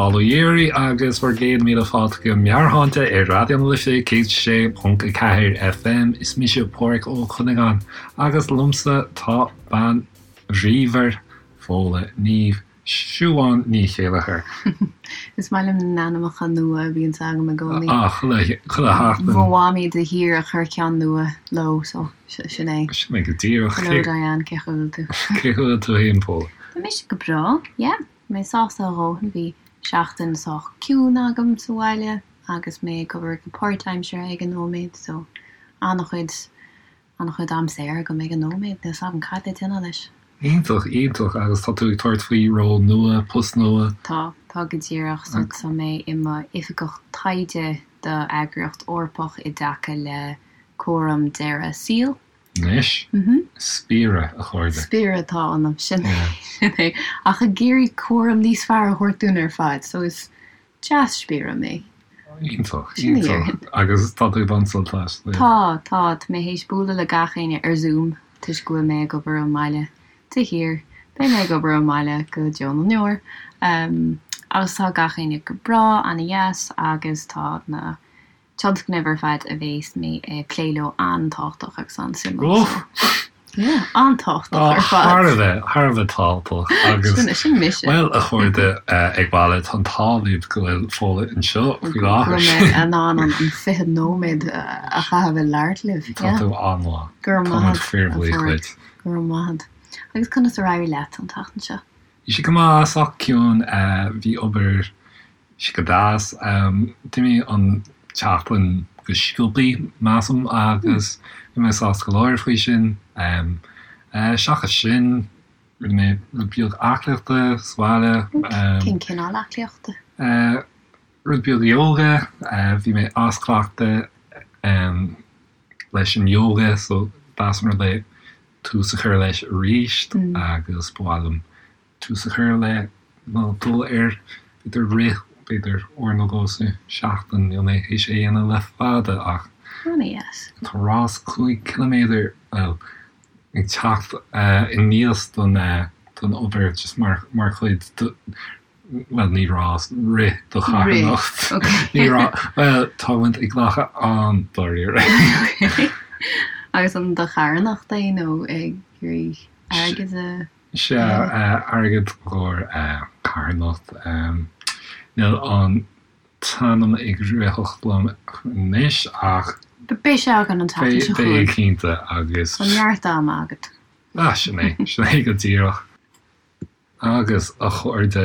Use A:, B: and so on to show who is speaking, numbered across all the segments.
A: Bail ó Dhia oraibh agus bhur gcéad míle fáilte go Meabhairshláinte ar Raidió na Life 106.4 FM. Is mise Páraic Ó Cuinneagáin agus liomsa tá bean bhríomhar Fódhla Niamh Siubhán Ní Chéilleachair.
B: Is maith liom na n-ainmneacha nua a bhíonns agam i gcónaí.
A: Ah, chuile, chuile sheachtain.
B: Mo mhamaí de shíor ag cur ceann nua leo, so sin é.
A: Sin é go díreach.
B: Hello Diane, cén chaoi a bhfuil tú?
A: Cén chaoi a bhfuil tú féin, Fódhla?
B: Tá mise go breá, yeah. Mé sásta a dhóthain, bhí seachtain sách ciúin agam sa bhaile agus mé ag obair go páirtaimseartha ag an nóiméad, so an-chuid, an-chuid am saor agam ag an nóiméad, níl 's agam cad le déanamh leis.
A: Iontach, iontach, agus tá tú ag tabhairt faoi ról nua, post nua?
B: Tá, tá go díreach, so tá mé i mo oifigeach taighde do eagraíocht Eorpach i dtaca le cúram deireadh saoil.
A: Anois? Spiaire, a chairde.
B: Spiaire atá ionam, sin é. Ach ag iarraidh cúram níos fearr a thabhairt dúinn ar fad, so is dea-spiaire mé.
A: Iontach, iontach. Agus tá tú ag baint sult as?
B: Tá, tá. Tá mé théis bualadh le gach éinne ar Zoom toisc go bhfuil mé ag obair ón mbaile de shíor. Beidh mé ag obair ón mbaile go deo na ndeor. Agus tá gach éinne go breá, an-dheas agus tá na tionscnaimh ar fad a bhéas mé ag plé leo an-tábhachtach agus an-suimiúil so yeah, an-tábhachtach ar fad.
A: Thar a bheith, thar a bheith tábhachtach agus
B: Sin, sin mise.
A: bhuel a chairde ag baile, tá an t-ádh libh go bhfuil Fódhla anseo faoi
B: Go
A: láthair.
B: bhfuil mé in ann an 20 nóiméad a chaitheamh ag labhairt libh,
A: Tá
B: yeah.
A: tú an-mhaith.
B: Go raibh
A: Tá
B: maith
A: muid
B: agat, a
A: fíorbhuíoch
B: Pháraic.
A: duit.
B: Go raibh maith agat. Agus conas ar éirigh leat an tseachtain seo?
A: Bhí sé go maith, sách ciúin, bhí obair sé go deas. D'imigh an tseachtain go sciobthaí, measaim, agus bhí mé sásta go leor faoi sin. Seachas sin, rinne mé rud beag aclaíochta sa bhaile.
B: Cén cineál aclaíochta?
A: Rud beag ióga. Bhí mé as cleachtadh leis an ióga so deas an rud é tús a chur leis arís agus ba mhaith liom tús a chur le nó dul ar, b'fhéidir rith, b'fhéidir uair nó dhó sa seachtain, níl mé théis é a dhéanamh le fada ach tá rás 5 ciliméadar, bhuel, ag teacht aníos don don obair just mar mar chuid de, bhuel ní rás, rith do charthanacht, ní rás, bhuel tá muid ag glacadh an-dáiríre.
B: Agus an do charthanacht é nó ag iarraidh airgead a.
A: Sea, airgead i gcomhair carthanacht. Níl an t-ainm ag ritheacht liom anois ach.
B: Beidh sé againn an tseachtain seo chugainn.
A: Beidh, cinnte, agus.
B: Tá neart ama agat.
A: Ah, sin é, sin é go díreach. Agus, a chairde,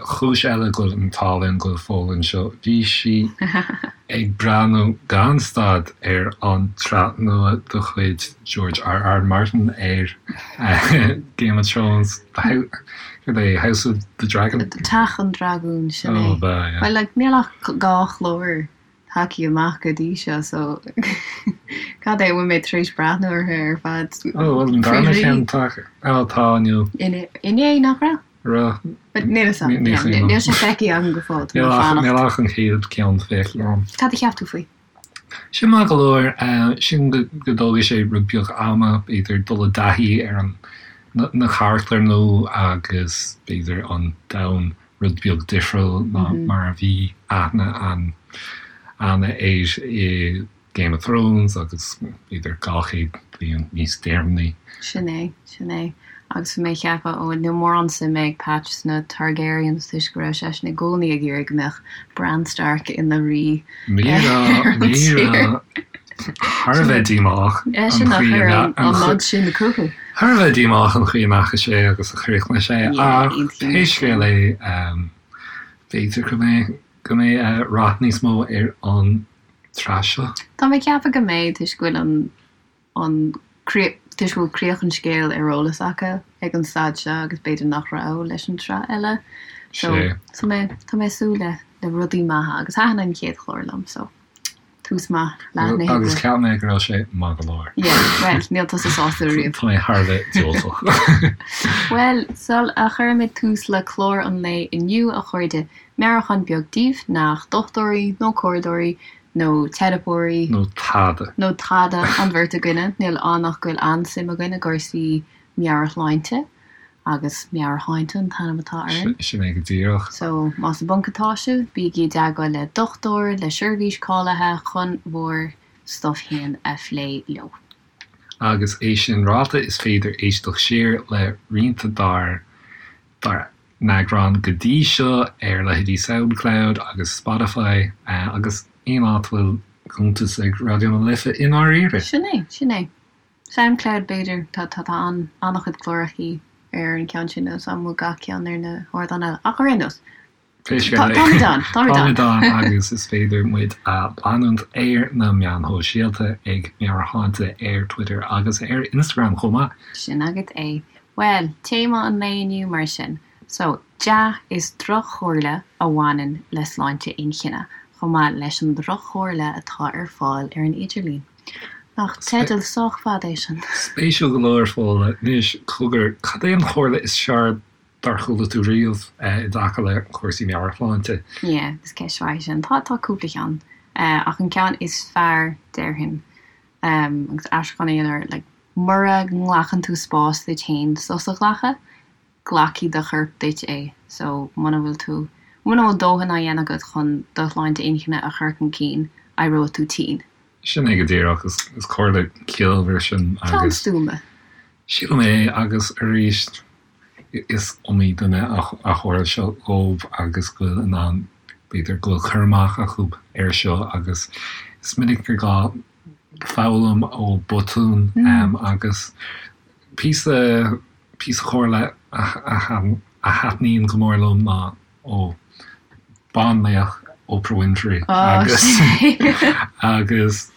A: cúis eile go bhfuil an t-ádh linn go bhfuil Fódhla anseo, bhí sí ag breathnú gan stad ar an tsraith nua de chuid George R. R. Martin ar Game of Thrones, céard é, House of the Dragon?
B: Teach an Dragúin, sin é.
A: Oh, b'ea, yeah.
B: Well, like, níl ach 2 chlár tagtha amach go dtí seo, so cad é, an bhfuil mé tar éis breathnú orthu ar fad?
A: Oh, bhuel, an darna ceann tagtha, oh, tá, inniu.
B: Inné, nach raibh?
A: Raibh.
B: Níl fhios agam. Níl sé feicthe agam go fóill. Tá mé ag fanacht.
A: Níl ach an chéad ceann feicthe agam.
B: Cad a cheap tú faoi?
A: Sin maith go leor. Sílim go dtógfaidh sé rud beag ama, b'fhéidir, dul i dtaithí ar an na carachtair nua agus b'fhéidir an domhan rud beag difriúil ná mar a bhí aithne againn air i Game of Thrones agus b'fhéidir 200 bliain níos deireanaí.
B: Sin é, sin é. Agus bhí mé ag ceapadh, ó, níl mórán suime ag Patch sna Targaryens toisc go raibh seisean i gcónaí ag iarraidh go mbeadh Bran Stark ina rí
A: ar an tír. Thar a bheith díomách an
B: Eisean a
A: chaoi
B: chuir
A: a
B: an nod sin chucu.
A: Thar a bheith díomách an chaoi a ndeachaigh sé agus a chríochnaigh sé
B: Yeah,
A: ach
B: aontaím
A: pé
B: leis sin.
A: scéal é, b'fhéidir go mbeidh go mbeidh rath níos mó ar an tsraith seo.
B: Tá mé ag ceapadh go mbeidh toisc go bhfuil an an toisc go bhfuil críoch an scéil ar eolas acu ag an staid seo agus b'fhéidir nach raibh leis an tsraith eile. So tá mé tá mé ag súil le le rudaí maithe agus thaitin an chéad chlár liom so tús maith leath na hoibre.
A: Agus cheap mé go raibh sé maith go leor.
B: Yeah, bhuel, níl tusa sásta riamh.
A: Tá mé thar a bheith diúltach.
B: Bhuel, sul a chuirimid tús le clár an lae inniu, a chairde, meabhrúchán beag daoibh nach dochtúirí nó comhairleoirí nó teiripeoirí.
A: Nó tada.
B: Nó tada an bheirt againne. Níl ann ach go bhfuil an-suim againn i gcúrsaí meabhairshláinte. Agus Meabhairshláinte an t-ainm atá
A: orainn. Sin é go díreach.
B: So, más i bponc atá sibh, bígí i dteagmháil le dochtúir, le seirbhís cáilithe chun bhur stuff féin a phlé leo.
A: Agus é sin ráite, is féidir éisteacht siar le roinnt dár dár n-eagráin go dtí seo ar leithéidí Soundcloud agus Spotify agus aon áit a bhfuil cuntas ag Raidió na Life i ndáiríre.
B: Sin é, sin é. Soundcloud b'fhéidir, tá tá tá an an-chuid clárachaí ar an ceann sin agus an bhfuil gach ceann ar na hardáin eile ach ar aon nós
A: Pé scéal é,
B: táimid ann, táimid ann.
A: Táimid ann agus is féidir muid a leanúint ar na meáin shóisialta ag Meabhairshláinte ar Twitter agus ar Instagram chomh maith.
B: Sin agat é. Bhuel, téama an lae inniu mar sin. So, dea is droch-chomhairle a bhaineann le sláinte inchinne, chomh maith leis an droch-chomhairle atá ar fáil ar an idirlíon. Nach teideal sách fada é sin.
A: Spéisiúil go leor, Fódhla. Anois, cogar, cad é an chomhairle is fearr dár chuala tú riamh i dtaca le cúrsaí meabhairshláinte?
B: Yeah, is ceist mhaith í sin. Tá, tá cúpla ceann. Ach an ceann is fearr, déarfainn, agus aistriúchán a dhéanamh air, like, mura nglacann tú spás duit féin sos a ghlacadh, glacfaidh do chorp duit é. So, muna bhfuil tú, muna bhfuil dóthain á dhéanamh agat chun do shláinte inchinne a chur chun cinn, éireoidh tú tinn.
A: Sin é go díreach. Is comhairle ciallmhar sin
B: agus. Ceann stuama.
A: Sílim é agus arís is iomaí duine a tharla seo dhóibh agus go bhfuil in ann, b'fhéidir go bhfuil cur amach acu air seo agus is minic gur gá foghlaim ó botúin agus píosa Píosa comhairle a thaitníonn go mór liom ná ó banlaoch Oprah Winfrey agus agus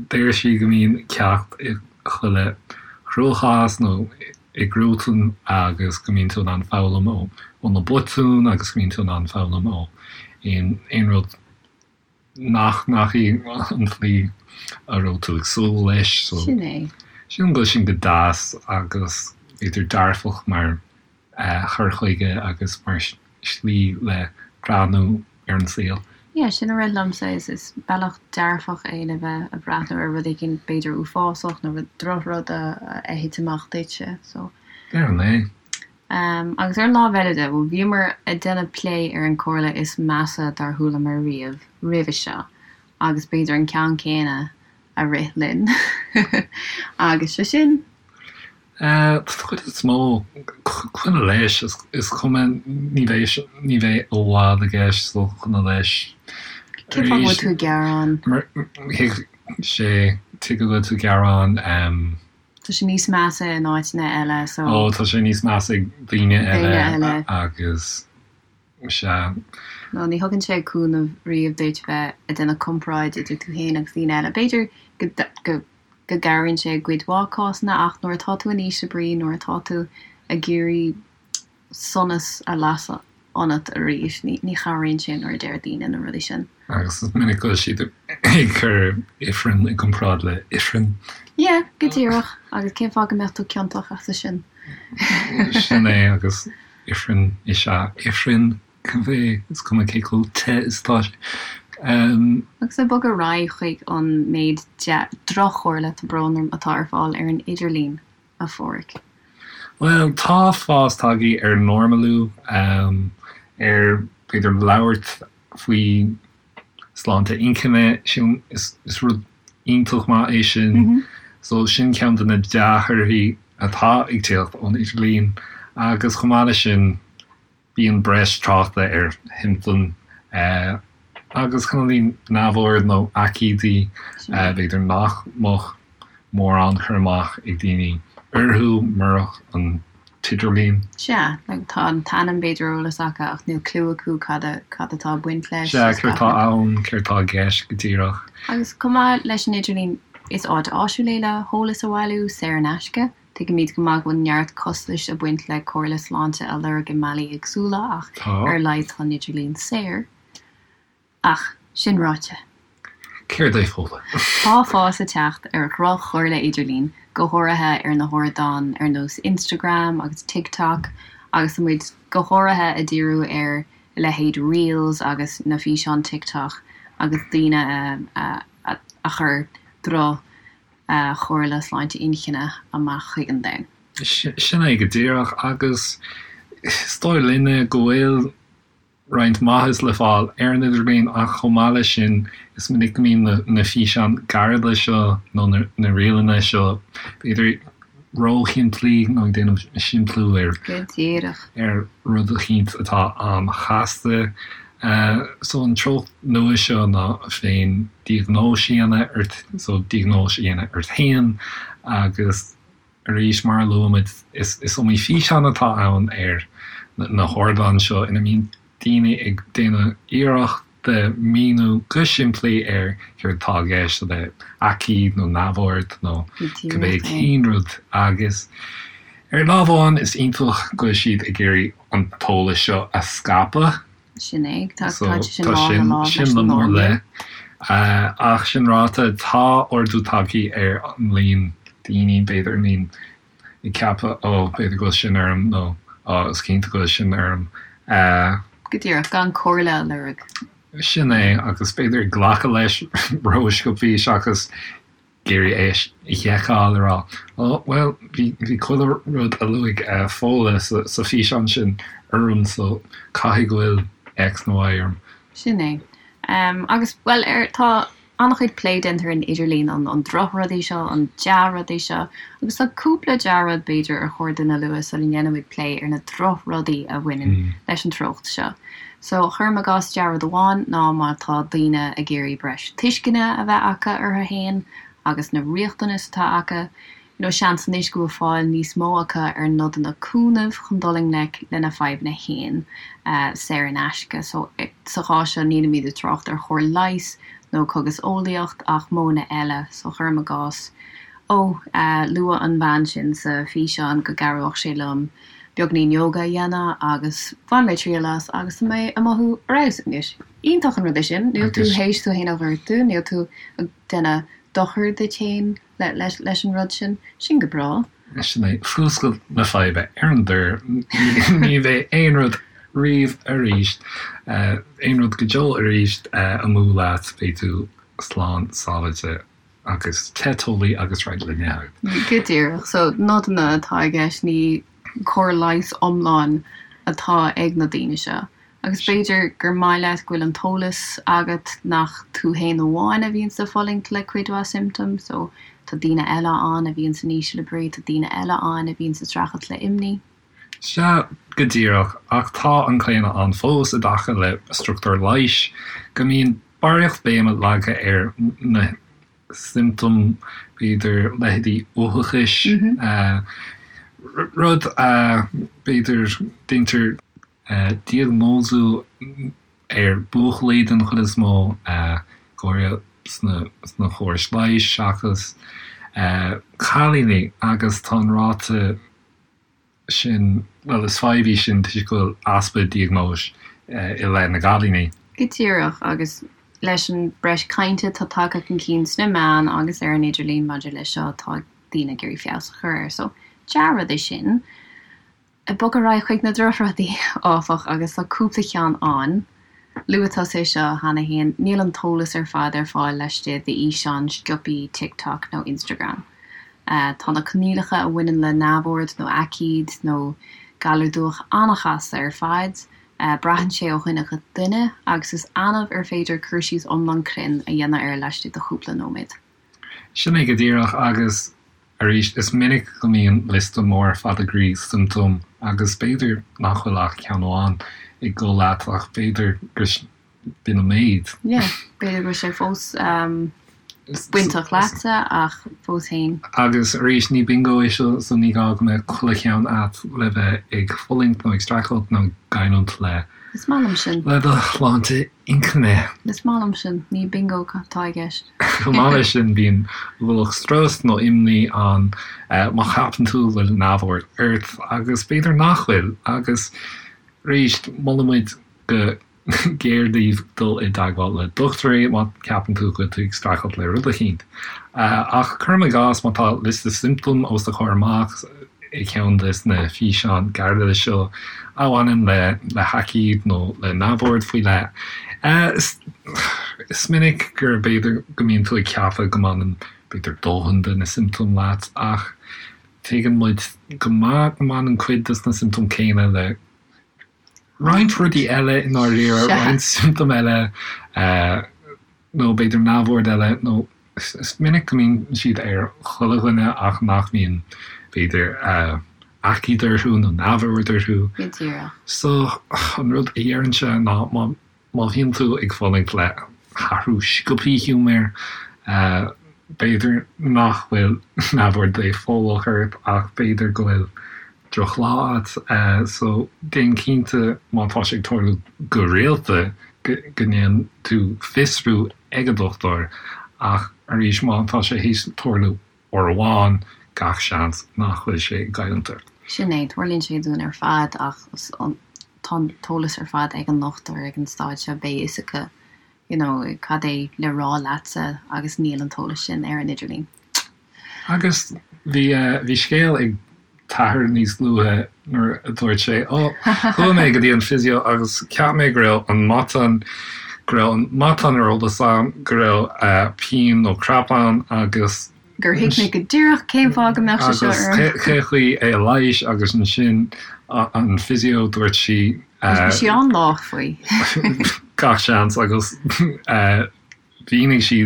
A: deir sí go mbíonn ceacht i chuile chruachás nó i gcruatan agus go mbíonn tú in ann foghlaim ó na botúin agus go mbíonn tú in ann foghlaim ó aon rud nach ndeachaigh an tslí a raibh tú ag súil leis. So,
B: Sin é.
A: Sílim go bhfuil sin go deas agus b'fhéidir dearfach mar chur chuige agus mar shlí le breathnú ar an saol.
B: Yeah, sin a rith liomsa, is is bealach dearfach é le bheith ag breathnú ar rud éigin b'fhéidir uafásach nó rud drochrud a thit amach duitse, so.
A: Déarfainn é.
B: Agus ar an lámh eile de, bhuel, bhíomar ag déanamh plé ar an comhairle is measa dár chualamar riamh roimhe seo, agus b'fhéidir an ceann céanna a rith linn agus sé sin.
A: Don chuid is mó, coinnigh leis, is cuma, ní bheidh, ní bheidh i bhfad i gceist, so coinnigh leis.
B: Cén fáth go bhfuil tú ag gearán?
A: Thuig sé, tuige go bhfuil tú ag gearán.
B: Tá sé níos measa in áiteanna eile so.
A: Ó, tá sé níos measa ag daoine eile agus sea.
B: No, ní thugann sé cúnamh riamh duit bheith ag déanamh comparáid idir tú féin agus daoine eile. B'fhéidir go go go gcabhraíonn sé i gcuid mhaith cásanna ach nuair atá tú in ísle brí, nuair atá tú ag iarraidh sonas a lasadh ionat arís. Ní chabhraíonn sé nuair a deir daoine na rudaí sin.
A: Agus is minic go bhfuil siad ag cur ifreann i gcomparáid le ifreann.
B: Yeah, go díreach. Agus cén fáth go mbeadh tú ciontach as sin?
A: Sin é, agus ifreann is ea ifreann, cibé, is cuma cé chomh te is atá sé.
B: Agus ag bogadh ar aghaidh chuig an méid droch-chomhairle, tá brón orm, atá ar fáil ar an idirlíon. a Pháraic?
A: Bhuel, tá fás tagtha ar normalú, ar b'fhéidir labhairt faoi sláinte inchinne, sin, is rud iontach maith é sin. So sin ceann de na dea-thorthaí atá ag tíocht ón idirlíon agus chomh maith leis sin, Bíonn breis tráchta ar shiomptóim agus cineáilín neamhord nó aicídí, b'fhéidir nach mbeadh mórán cur amach ag daoine orthu murach an t-idirlíon.
B: Sea, tá an t-ainm b'fhéidir ar eolas acu ach níl cliú acu cad cad atá ag baint leis.
A: Sea, céard atá ann, céard atá i gceist go díreach.
B: Agus chomh maith leis an idirlíon, is áit áisiúil é le heolas a bhailiú, saor in aisce. Tuigimid go maith go bhfuil neart costais ag baint le comhairle sláinte a lorg i mbealaí éagsúla ach ar a laghad tá an idirlíon saor. Ach, sin ráite.
A: Céard é Fódhla?
B: Tá fás ag teacht ar dhroch-chomhairle idirlín, go háirithe ar na hardáin ar nós Instagram agus TikTok agus tá muid go háirithe ag díriú ar a leithéid Reels agus na físeáin TikTok agus daoine a a chuir droch chomhairle sláinte inchinne amach chuig an domhan.
A: Sin é go díreach agus is dóigh linne go bhfuil roinnt maitheas le fáil ar an idirlíon ach chomh maith leis sin is minic go mbíonn na físeáin gairide seo nó na ríleanna seo b'fhéidir róshimplí nó ag déanamh simpliú ar
B: Go díreach.
A: ar rud eicínt atá an-chasta. So an treocht nua seo ná féin diagnóis a dhéanamh ort, so diagnóis a dhéanamh ort féin agus Arís, mar a luaigh muid, is iomaí físeán atá ann ar na hardáin seo ina mbíonn daoine ag déanamh iarracht de míniú go simplí ar céard atá i gceist le aicíd nó neamhord nó cibé cén rud agus ar lámh amháin is iontach go bhfuil siad ag iarraidh an t-eolas seo a scaipeadh.
B: Sin é. Tá sé sin lámh i lámh leis
A: an norm. Ach sin ráite, tá ardú tagtha ar an líon daoine, b'fhéidir, a mbíonn ag ceapadh, ó, b'fhéidir go bhfuil sin orm nó ó, is cinnte go bhfuil sin orm.
B: Go díreach, gan comhairle a lorg.
A: Sin é, agus b'fhéidir ag glacadh leis rósciobthaí seachas ag iarraidh é a sheiceáil, a rá, Ó, bhuel, bhí, bhí chuile rud a luaigh Fódhla sa, sa físeán sin orm so caithfidh go bhfuil X nó Y orm.
B: Sin é. Agus, bhuel, ar, tá an-chuid plé déanta ar an idirlíon, an, an drochrudaí seo, an dea-rudaí seo, agus tá cúpla dea-rud, b'fhéidir, ar chóir dúinn a lua sula ndéanaimid plé ar na drochrudaí a bhaineann leis an treocht seo. So, cuirim i gcás dea-rud amháin ná má tá daoine ag iarraidh breis tuisceana a bheith acu orthu fhéin agus na riachtanais atá acu, you know, seans anois go bhfuil fáil níos mó acu ar nodanna cúnaimh chun dul i ngleic lena fadhbanna fhéin, saor in aisce. So, sa chás seo nílimid ag trácht ar chóir leighis nó cogaseolaíocht ach modhanna eile. So, cuirim i gcás, ó, luaigh an bhean sin sa físeán go gcabhródh sé liom beagainín yoga a dhéanamh agus bhain mé triail as agus tá mé ag mothú ar fheabhas anois. Iontach an rud é sin, níl tú théis tú fhéin a ghortú, níl tú ag déanamh dochar duit fhéin leis an rud sin. Sin go breá.
A: Sin é, fuascailt na faidhbe ar an dtor, ní bheidh aon rud riamh arís, aon rud go deo arís amú leat, beidh tú slán sábháilte. agus te teolaí agus réidh le n-ithe.
B: Go díreach. So, nodanna atá i gceist, ní cóir leighis iomlán atá ag na daoine seo. Agus b'fhéidir gur maith leat go bhfuil an t-eolas agat nach tú fhéin amháin a bhíonns ag fulaingt le cuid mhaith symptoms, so tá daoine eile ann a bhíonns in ísle brí, tá daoine eile ann a bhíonns ag streachailt le imní.
A: Sea, go díreach, ach tá an claonadh ann fós i dtaca le struchtúr leighis go mbíonn barraíocht béime leagtha ar na siomptóim, b'fhéidir, leithéidí uathachais, rud a, b'fhéidir, deintear diagnóisiú ar buachaillí den chuid is mó, go háirithe sna córais leighis seachas cailíní, agus tá an ráta sin, bhuel, is fadhb í sin toisc go bhfuil easpa diagnóis i leith na gcailíní.
B: Go díreach, agus leis an breis cainte atá tagtha chun cinn sna meáin agus ar an idirlíon maidir leis seo, tá daoine ag iarraidh feabhas a chur air. So, dea-rud é sin. Ag bogadh ar aghaidh chuig na drochrudaí, áfach, agus tá cúpla ceann ann. Luaigh tusa é seo cheana féin, níl an t-eolas ar fad ar fáil laistigh d'fhíseáin sciobthaí TikTok nó Instagram. Tá na coinníollacha a bhaineann le neamhord nó aicíd nó galar dubhach an-chasta ar fad, braitheann sé ó dhuine go duine agus is annamh ar féidir cur síos iomlán cruinn a dhéanamh air laistigh de chúpla nóiméad.
A: Sin é go díreach agus arís is minic go mbíonn liosta mór fada groí siomptóm agus b'fhéidir nach bhfuil ach ceann amháin ag dul leat ach b'fhéidir gur b'in an méid.
B: Yeah, b'fhéidir go bhfuil sé fós bainteach leatsa ach fós féin.
A: Agus arís ní bingo é seo so ní gá go mbeadh chuile cheann a't le bheith ag fulaingt nó ag streachailt nó ag coimhlint le
B: Is maith liom sin.
A: le do shláinte intinne.
B: Is maith liom sin. Ní bingo atá i gceist.
A: Chomh maith leis sin, bíonn ualach strus nó imní ann má cheapann tú go bhfuil neamhord ort agus b'fhéidir nach bhfuil. Agus arís, molaimid go géar daoibh dul i dteagmháil le dochtúirí má cheapann tú go bhfuil tú ag streachailt le rud eicínt. Ach cuirim i gcás má tá liosta siomptóm os do chomhair amach i gceann de na físeáin ghairide seo a bhaineann le le haicíd nó le neamhord faoi leith, is minic gur b'fhéidir go mbíonn tú ag ceapadh go mbaineann b'fhéidir dóthain de na siomptóim leat ach. Tuigeann muid go maith go mbaineann cuid de na siomptóim céanna le roinnt rudaí eile i ndáiríre, roinnt siomptóm eile nó b'fhéidir neamhord eile nó is minic go mbíonn siad ar chuile dhuine ach nach mbíonn b'fhéidir aicíd orthu nó neamhord orthu.
B: Go díreach.
A: So an rud a deirimse ná má Má bhíonn tú ag fulaingt le hathrú sciobthaí giúmair, b'fhéidir nach bhfuil neamhord dépholach ort ach b'fhéidir go bhfuil drochlá agat. So déan cinnte má tá sé ag tarlú go rialta go ndéanann tú fiosrú ag an dochtúir ach arís má tá sé théis tarlú uair amháin, gach seans nach bhfuil sé ag goilliúint ort.
B: Sin é, tarlaíonn sé dúinn ar fad ach tá an t-eolas ar fad ag an ndochtúir ag an staid seo, beidh fhios acu you know cad é le rá leatsa agus níl an t-eolas sin ar an idirlíon.
A: Agus bhí bhí scéal ag t'athair níos luaithe nuair a dúirt sé, Ó, chuaigh mé go dtí an physio agus cheap mé go raibh an matán, go raibh an matán ar eolas agam, go raibh pian nó cramp ann agus.
B: gur thuig mé go díreach cén fáth go mbeadh sé seo
A: orm. Agus cé chaoi é a leighis agus ansin an physio dúirt sí.
B: Bhí sí an-lách faoi.
A: Gach seans agus mhínigh sí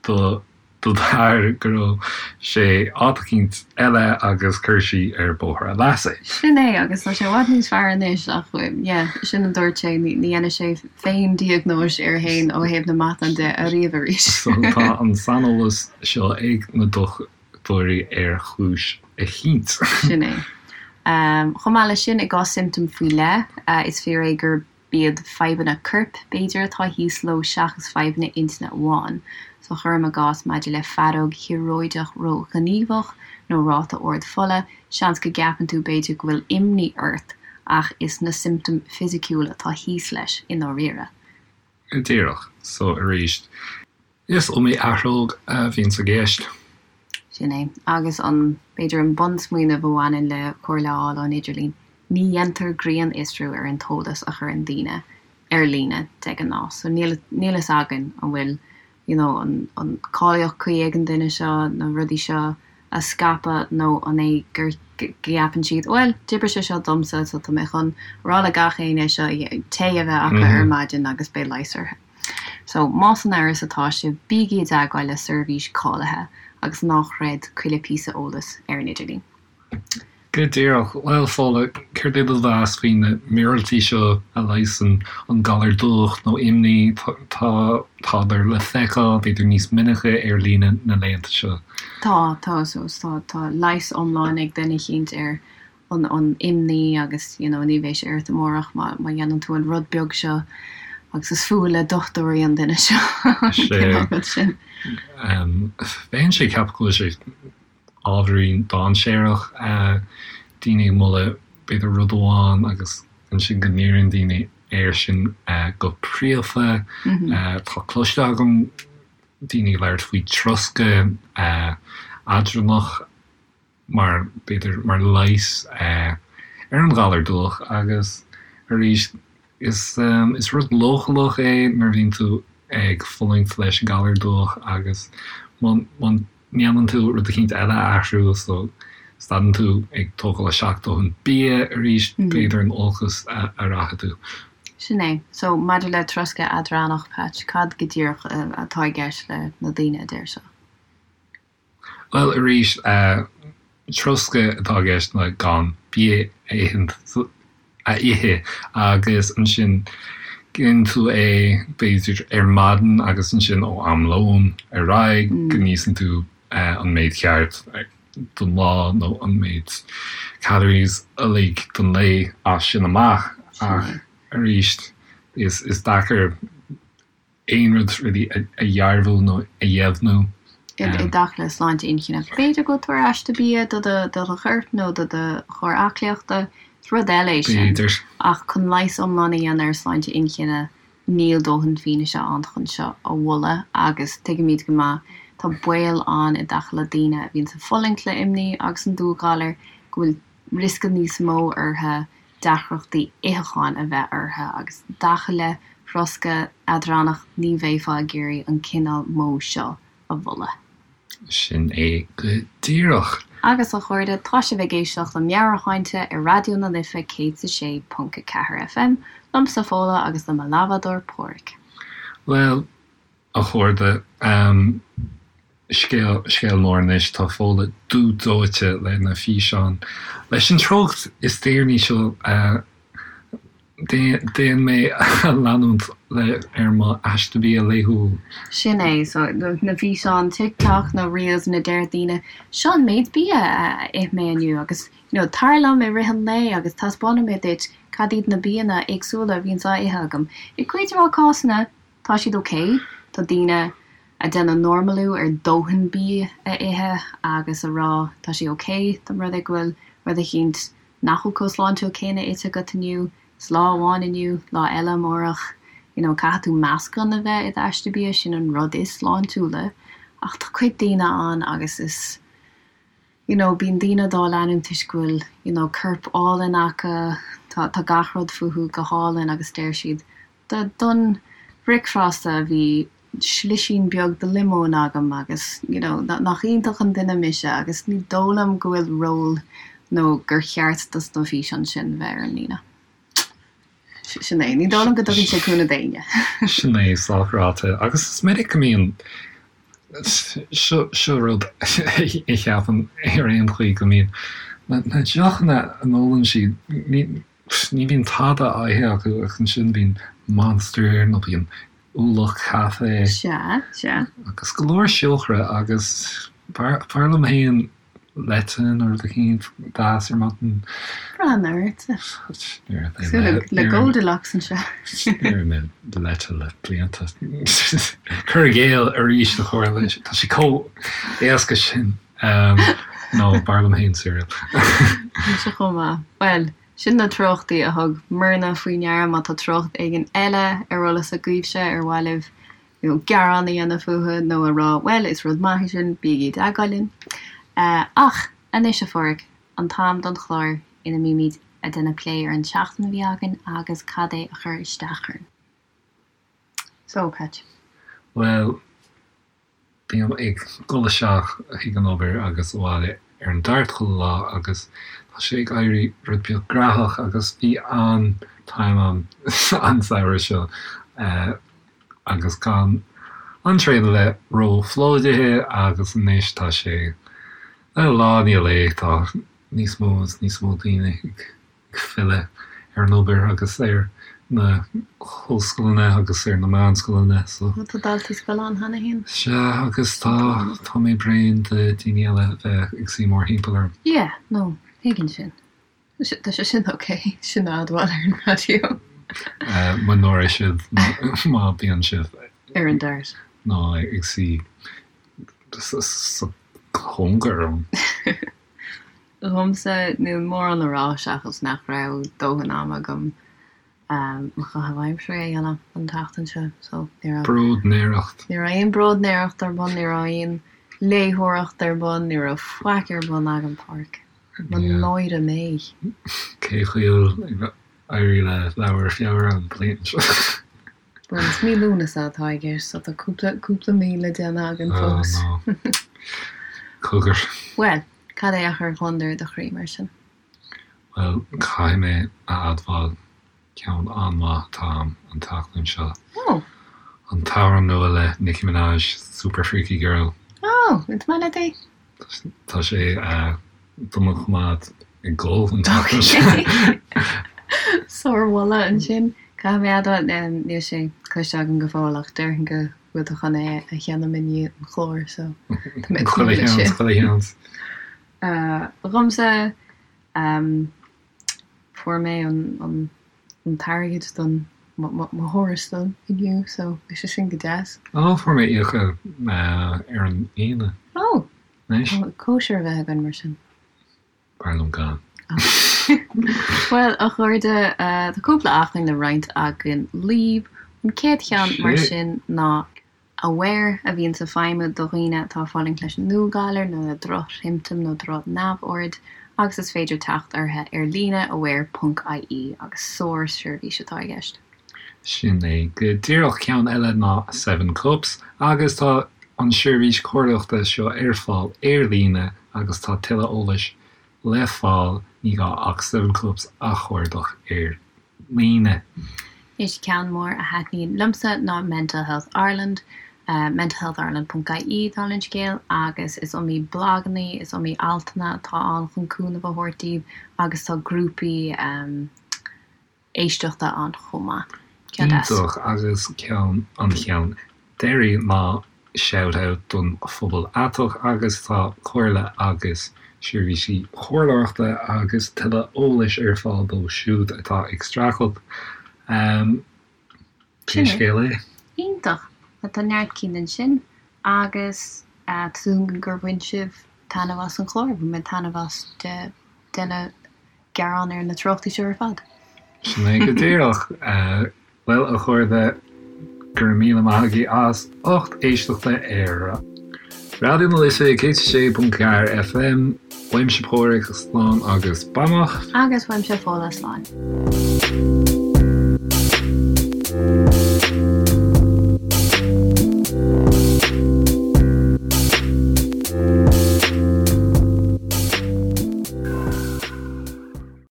A: do do d'athair go raibh sé áit eicínt eile agus chuir sí ar bóthar a leasa
B: é. Sin é, agus tá sé i bhfad níos fearr anois ach yeah, sin a dúirt sé, ní dhéanfaidh sé féin diagnóis air féin ó thaobh na matán de ariamh arís.
A: So tá an saineolas seo ag na dochtúirí ar chúis eicínt.
B: Sin é. Chomh maith leis sin, i gcás siomptóm faoi leith, is fíor é gur B'iad fadhbanna coirp, b'fhéidir, atá thíos leo seachas fadhbanna intinne amháin. So cuirim i gcás maidir le faireog thíoróideach ró-ghníomhach nó ráta ard fola, seans go gceapann tú b'fhéidir go bhfuil imní ort ach is na siomptóim fisiciúil atá thíos leis i ndáiríre.
A: Go díreach. So arís, Is iomaí athróg a bhíonns i gceist.
B: Sin é. Agus an, b'fhéidir an bunsmaoineamh a bhaineann le comhairle a fháil ón idirlíon, ní dhéantar grinnfhiosrú ar an t-eolas a chuireann daoine ar líne de ghnáth. So níl, níl fhios againn an bhfuil, you know, an, an cáilíocht cuí ag an duine seo na rudaí seo a scaipeadh nó an é gur, go gceapann siad, bhuel, d'oibrigh sé seo domsa so tá mé chun a rá le gach éinne seo tae a bheith acu ar maidin agus beidh leigheas orthu. So, más in amhras atá sibh, bígí i dteagmháil le seirbhís cáilithe agus ná chreid chuile píosa eolais ar an idirlíon.
A: Go díreach. Bhuel, Fódhla, céard é do mheas faoi na míorúiltí seo a leigheasann an galar dubhach nó imní? Tá, tádar le feiceáil, b'fhéidir níos minice ar líne na laethanta seo.
B: Tá, tá, so, tá, tá leigheas iomlán ag duine eicínt ar an an imní agus you know ní bheidh sé ort amárach má má dhéanann tú an rud beag seo agus is fuath le dochtúirí an duine seo an cineál rud
A: sin. Bheinnse ag ceapadh go bhfuil sé ábhairín dainséarach, daoine ag moladh b'fhéidir rud amháin agus ansin go n-iarrann daoine air sin go príomha. Tá cloiste agam daoine ag labhairt faoi troscadh eadránach. mar, b'fhéidir, mar leigheas ar an ghalar dubhach agus arís is, is rud leochaileach é nuair a bhíonn tú ag fulaingt leis an galar dubhach agus má, má ndéanann tú rud eicínt eile a athrú so stadann tú ag tógáil isteach dóthain bia arís b'fhéidir in olcas a rachaidh tú.
B: Sin é. So maidir le troscadh eadránach, Patch, cad go díreach atá i gceist le na daoine a deir seo?
A: Bhuel, arís, troscadh atá i gceist ná gan bia a a ithe agus ansin déanann tú é b'fhéidir ar maidin agus ansin ó am lóin ar aghaidh go n-íosann tú an méid ceart don lá nó an méid calories uilig don lae as sin amach ach arís is deacair aon rud really a dhearbhú nó a dheimhniú.
B: I dtaca le sláinte inchinne, b'fhéidir go bhfuil tú ar aiste bia do do do chorp nó do do chóir aclaíochta, is rud eile é sin.
A: B'fhéidir.
B: Ach chun leigheas iomlán a dhéanamh ar shláinte inchinne, níl dóthain fianaise ann chun seo a mholadh agus tuigimid go maith, tá baol ann i dtaca le daoine a bhíonns ag fulaingt le imní agus an dúghalar, go bhfuil riosca níos mó orthu deacrachtaí itheacháin a bheith orthu agus i dtaca le throscadh eadránach ní bheifeá ag iarraidh an cineál modh seo a mholadh.
A: Sin é go díreach.
B: Agus a chairde, tá sibh ag éisteacht le Meabhairshláinte ar Raidió na Life 106.4 FM, liomsa Fódhla agus le mo leathbhádóir Páraic.
A: Bhuel, a chairde, scéal, scéal mór anois, tá Fódhla dubh dóite le na físeáin. Leis an treocht is deireanaí seo, Déan mé a leanúint le ar mo aiste bia laethúil.
B: Sin é, so na físeáin TikTok nó Reels ina deir daoine, seo an méid bia a ith mé inniu agus you know tar liom i rith an lae agus taispeánfaidh mé duit cad iad na bianna éagsúla a bhíonns á ithe agam. I gcuid mhaith cásanna tá siad ok, tá daoine a déanamh normalú ar dóthain bia a ithe agus a rá tá sé ok dá mba rud é go bhfuil rud eicínt nach bhfuil chomh sláintiúil céanna ite agat inniu, is lá amháin inniu, lá eile amárach, you know caithfidh tú meascán a bheith i d'aiste bia, sin an rud is sláintiúla ach tá cuid daoine ann agus is you know bíonn daoine dá leanúint toisc go bhfuil you know corp álainn acu, tá tá gach rud fúthu go hálainn agus deir siad Don bhricfeasta bhí slisín beag de liomón agam agus you know nach iontach an duine mise agus ní dóigh liom go bhfuil ról nó gur cheart dos na físeáin sin bheith ar an líne. Sin é. Ní dóigh liom go dtugann sé cúnamh d'éinne.
A: Sin é, sách ráite. Agus is minic go mbíonn, seo seo rud a cheapaim ar aon chaoi go mbíonn na deochanna a n-ólann siad, ní, Ní bhíonn tada á ithe acu ach ansin bíonn Monster nó bíonn ualach caife.
B: Sea, sea.
A: Agus go leor siúcra agus b'fhearr liom féin leite nó rud eicínt deas ar maidin.
B: Breathnaigh ortsa. Cosúil le Goldilocks anseo.
A: Níor ith mé leite le blianta. Cur i gcéill arís a chairde, tá sé chomh éasca sin. Nó b'fhearr liom féin cereal.
B: Mise chomh maith. Bhuel, sin na treochtaí a thug Myrna faoi ndeara. Má tá treocht éigin eile ar eolas agaibhse ar mhaith libh you know gearán a dhéanamh fúthu nó a rá bhuel is rud maith é sin, bígí i dteagmháil linn. Ach anois a Pháraic, an t-am don chlár ina mbímid a' déanamh plé ar an tseachtain a bhí againn agus cad é a chuir isteach orainn. So, Patch.
A: Bhuel, Bím ag dul isteach chuig an obair agus abhaile ar an Dart chuile lá agus tá sé ag éirí rud beag graitheach agus bhí an-time agam an samhradh seo agus gan an traein a bheith ró-phlódaithe agus anois tá sé, lá i ndiaidh lae tá níos mó is níos mó daoine ag ag filleadh ar an obair agus ar na hollscoileanna agus ar na meánscoileanna so.
B: Tá daltaí scoile ann cheana féin.
A: Sea, agus tá, tá mé bréan de daoine eile a bheith ag suí mórthimpeall orm.
B: Yeah, no, tuigim sin. Tá sé sin ok, sin a admháil ar an raidió.
A: Mo náire sibh má bíonn sibh.
B: Ar an Dart.
A: Nó ag suí sa chóngar orm.
B: Dhomsa, níl mórán le rá seachas nach raibh dóthain ama agam mo chaitheamh aimsire a dhéanamh an tseachtain seo so ní raibh.
A: Bróidnéireacht.
B: Ní raibh aon bróidnéireacht ar bun, ní raibh aon léitheoireacht ar bun, ní raibh faic ar bun agam, Páraic. Mo náire mé.
A: Cén chaoi a bhfuil ag éirí le leabhar Feabhra an bhliain seo?
B: Bhuel, is mí Lúnasa atá i gceist, so tá cúpla, cúpla mí le déanamh againn fós.
A: Oh no. Cogar.
B: Bhuel, cad é a chuir gliondar i do chroí, mar sin?
A: Bhuel, caithfidh mé a admháil, ceann an-mhaith atá a'm an tseachtain seo.
B: Oh.
A: An t-amhrán nua le Nicki Minaj, Super Freaky Girl.
B: Oh, is maith leat é?
A: Tá sé do mo choimeád ag gol an tseachtain seo.
B: Sármholadh ansin. Caithfidh mé a admháil, níl sé cloiste agam go fóill ach déarfainn go bhfuil tú chun é a sheinm i ndiaidh an chláir so
A: tá mé ag tnúth leis sin. Chuile sheans.
B: Dhomsa, fuair mé an t-airgead don mo thuarastal inniu so bhí sé sin go deas.
A: Ó, fuair mé íoctha ar an Aoine.
B: Ó! Anois. Cóisir a bheith againn mar sin.
A: B'fhearr liom gan.
B: Bhuel, a chairde, tá cúpla acmhainn le roinnt againn libh. An chéad cheann mar sin ná Aware, a bhíonns ag feidhmiú do dhaoine atá ag fulaingt leis an ndúghalar nó le drochshiomptóim nó droch-neamhord agus is féidir teacht orthu ar líne aware.ie agus sár-sheirbhís atá i gceist.
A: Sin é go díreach. Ceann eile ná Seven Cups agus tá an seirbhís comhairleoireachta seo ar fáil ar líne. Agus tá tuilleadh eolais le fáil, ní gá ach Seven Cups a chuardach ar líne.
B: Is ceann mór a thaitníonn liomsa ná Mental Health Ireland, mentalhealthireland ponc ie, dála an scéil, agus is iomaí blagannaí, is iomaí altanna atá ann chun cúnamh a thabhairt daoibh agus tá grúpaí éisteachta ann chomh maith.
A: Ceann deas. Iontach agus ceann an cheann deiridh ná shout out don phobal aiteach agus tá comhairle agus seirbhísí comhairleoireachta agus tuilleadh eolais ar fáil dóibh siúd atá ag streachailt. Pé scéal
B: é. Iontach! Tá neart cinn ansin agus tá súil agam gur bhain sibh taitneamh as an chlár. Bhain mé taitneamh as ag déanamh gearán ar na treochtaí seo ar fad.
A: Sin é go díreach. Bhuel, a chairde, go raibh míle maith agaibh as ucht éisteachta ar Raidió na Life 106.4 FM. Uaimse Páraic, slán agus beannacht.
B: Agus uaimse Fódhla, slán.